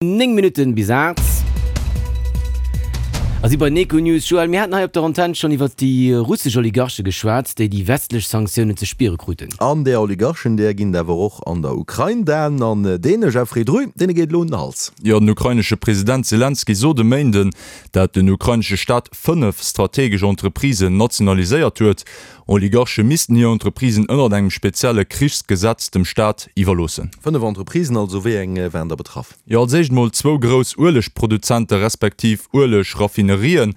9 Minutten bis 8 a si bei den Econews. Joël, mir haten hei op der Antenn schonn iwwert déi russesch Oligarche geschwat, déi déi westlech Sanktiounen ze spiere kruten. An där Oligarchen, där ginn et awer och an der Ukrain. Dan an deene Jeffrey Drü, deene geet elo un den Hals. Jo, den ukrainesche President Selenskyj sot e Méinden, dat den ukrainesche Staat 5 strategesch Entreprisen nationaliséiert huet. Oligarche missten hir Entreprisen ënnert engem spezielle Krichsgesetz dem Staat iwwerloossen. 5 Entreprisen also, wéi eng waren da betraff? Jo, als éischt mol zwou grouss Uelegproduzente respektiv Ueleg-Raffinerien.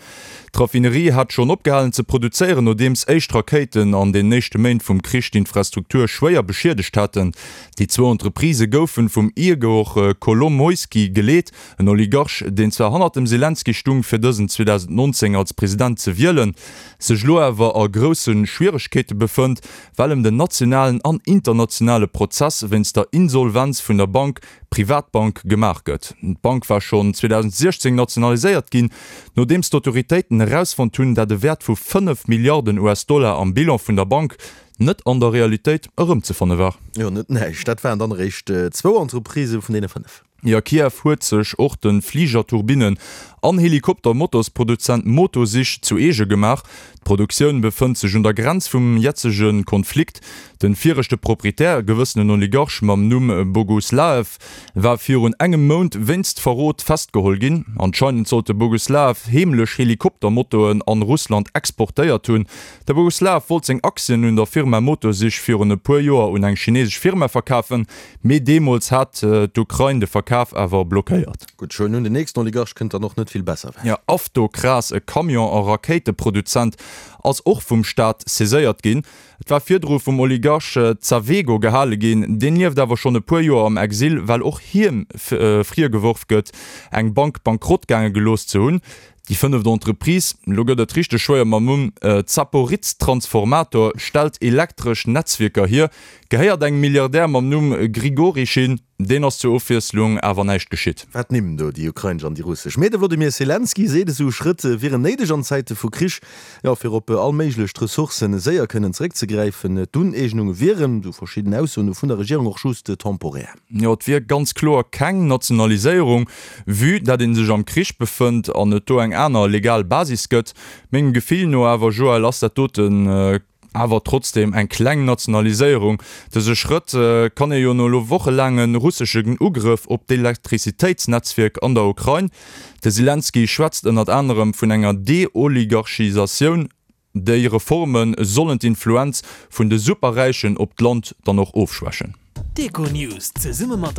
D'Raffinerie hat schonn opgehalen ze produzéieren, nodeems éischt Rakéiten an den éischte Méint vum Krich d'Infrastruktur schwéier beschiedegt haten. Déi zwou Entreprisë goufen vum Igor Kolomoisky geleet, en Oligarch, deen zwar hannert dem Selenskyj stung, fir dësen 2019 als President ze wielen, sech elo awer a grousse Schwieregkeete befënnt, well em den nationalen an internationale Prozess wéinst der Insolvenz vun der Bank Privatbank gemaach gëtt. D'Bank war schonn 2016 nationaliséiert ginn, nodeems d'Autoritéiten erausfonnt hunn, dat e Wäert vu 5 Milliarden US-Dollar am Bilan vun der Bank net an der Realitéit erëmzefanne war. Jo, net näischt. Dat waren dann eréischt zwou Entreprisë vun deene 5. Jo, Kiew huet sech och de Fligerturbinnen an Helikoptermotorsproduzent Motor-Sich zu eege gemaach. D'Produktioun befënnt sech un der Grenz vum jetzege Konflikt. Den viregte Proprietär, e gewëssenen Oligarch mam Numm Boguslaev, war virun engem Mount wéinst Verrot festgeholl ginn. Anscheinend sollt de Boguslaev heemlech Helikoptermotoren an Russland exportéiert hunn. De Boguslaev wollt seng Aktien un der Firma Motor-Sich virun e puer Joer un eng chinesesch Firma verkafen, Mee deemools hat d'Ukrain de Verkaf awer blockéiert. Gutt, ech huelen un, den nächsten Oligarch kënnt dann och net vill besser ewech. Jo, Avtokras, e Camion a Rakéiteproduzent, ass och vum Staat saiséiert ginn. Et war virdru vum Oligarch Zavego gehale ginn. Deen lieft awer schonn e puer Joer am Exil, well och hiem virgeworf gëtt, eng Bank bankrott gaange gelooss ze hunn. Déi fënneft Entreprise, lo gëtt et richteg schwéier mam Numm, Zaporiztransformator, stellt elektresch Netzwierker hier, gehéiert engem Milliardär mam Numm Grigorischin. Deen ass zur Ofwiesslung awer näischt geschitt. Wat Nimm do, déi ukrainesch an déi russesch. Mee de Wlodimir Selenskyj seet, esou Schrëtt wieren néideg an Zäite vu Krich, jo, fir op all méiglech Ressourcen séier kënnen zeréckzegräifen. D'Uneegnunge wieren, esou verschidden Aussoen no vun der Regierung, och just temporär. Jo, et wier ganz kloer keng Nationaliséierung, vue dat ee sech am Krich befënnt an et do eng aner legal Basis gëtt. Mengem Gefill no awer, Joël, ass dat doten awer trotzdeem eng kleng Nationaliséierung. Dëse Schrëtt kann ee jo no elo wochelaange russeschen Ugrëff op d'Elektrizitéitsnetzwierk an der Ukrain, de Selenskyj schwätzt ënnert anerem vun enger Deoligarchisatioun, Déi Reforme sollen d'Influenz vun de Superräichen op d'Land dann och ofschwächen. D'Econews zesumme mat.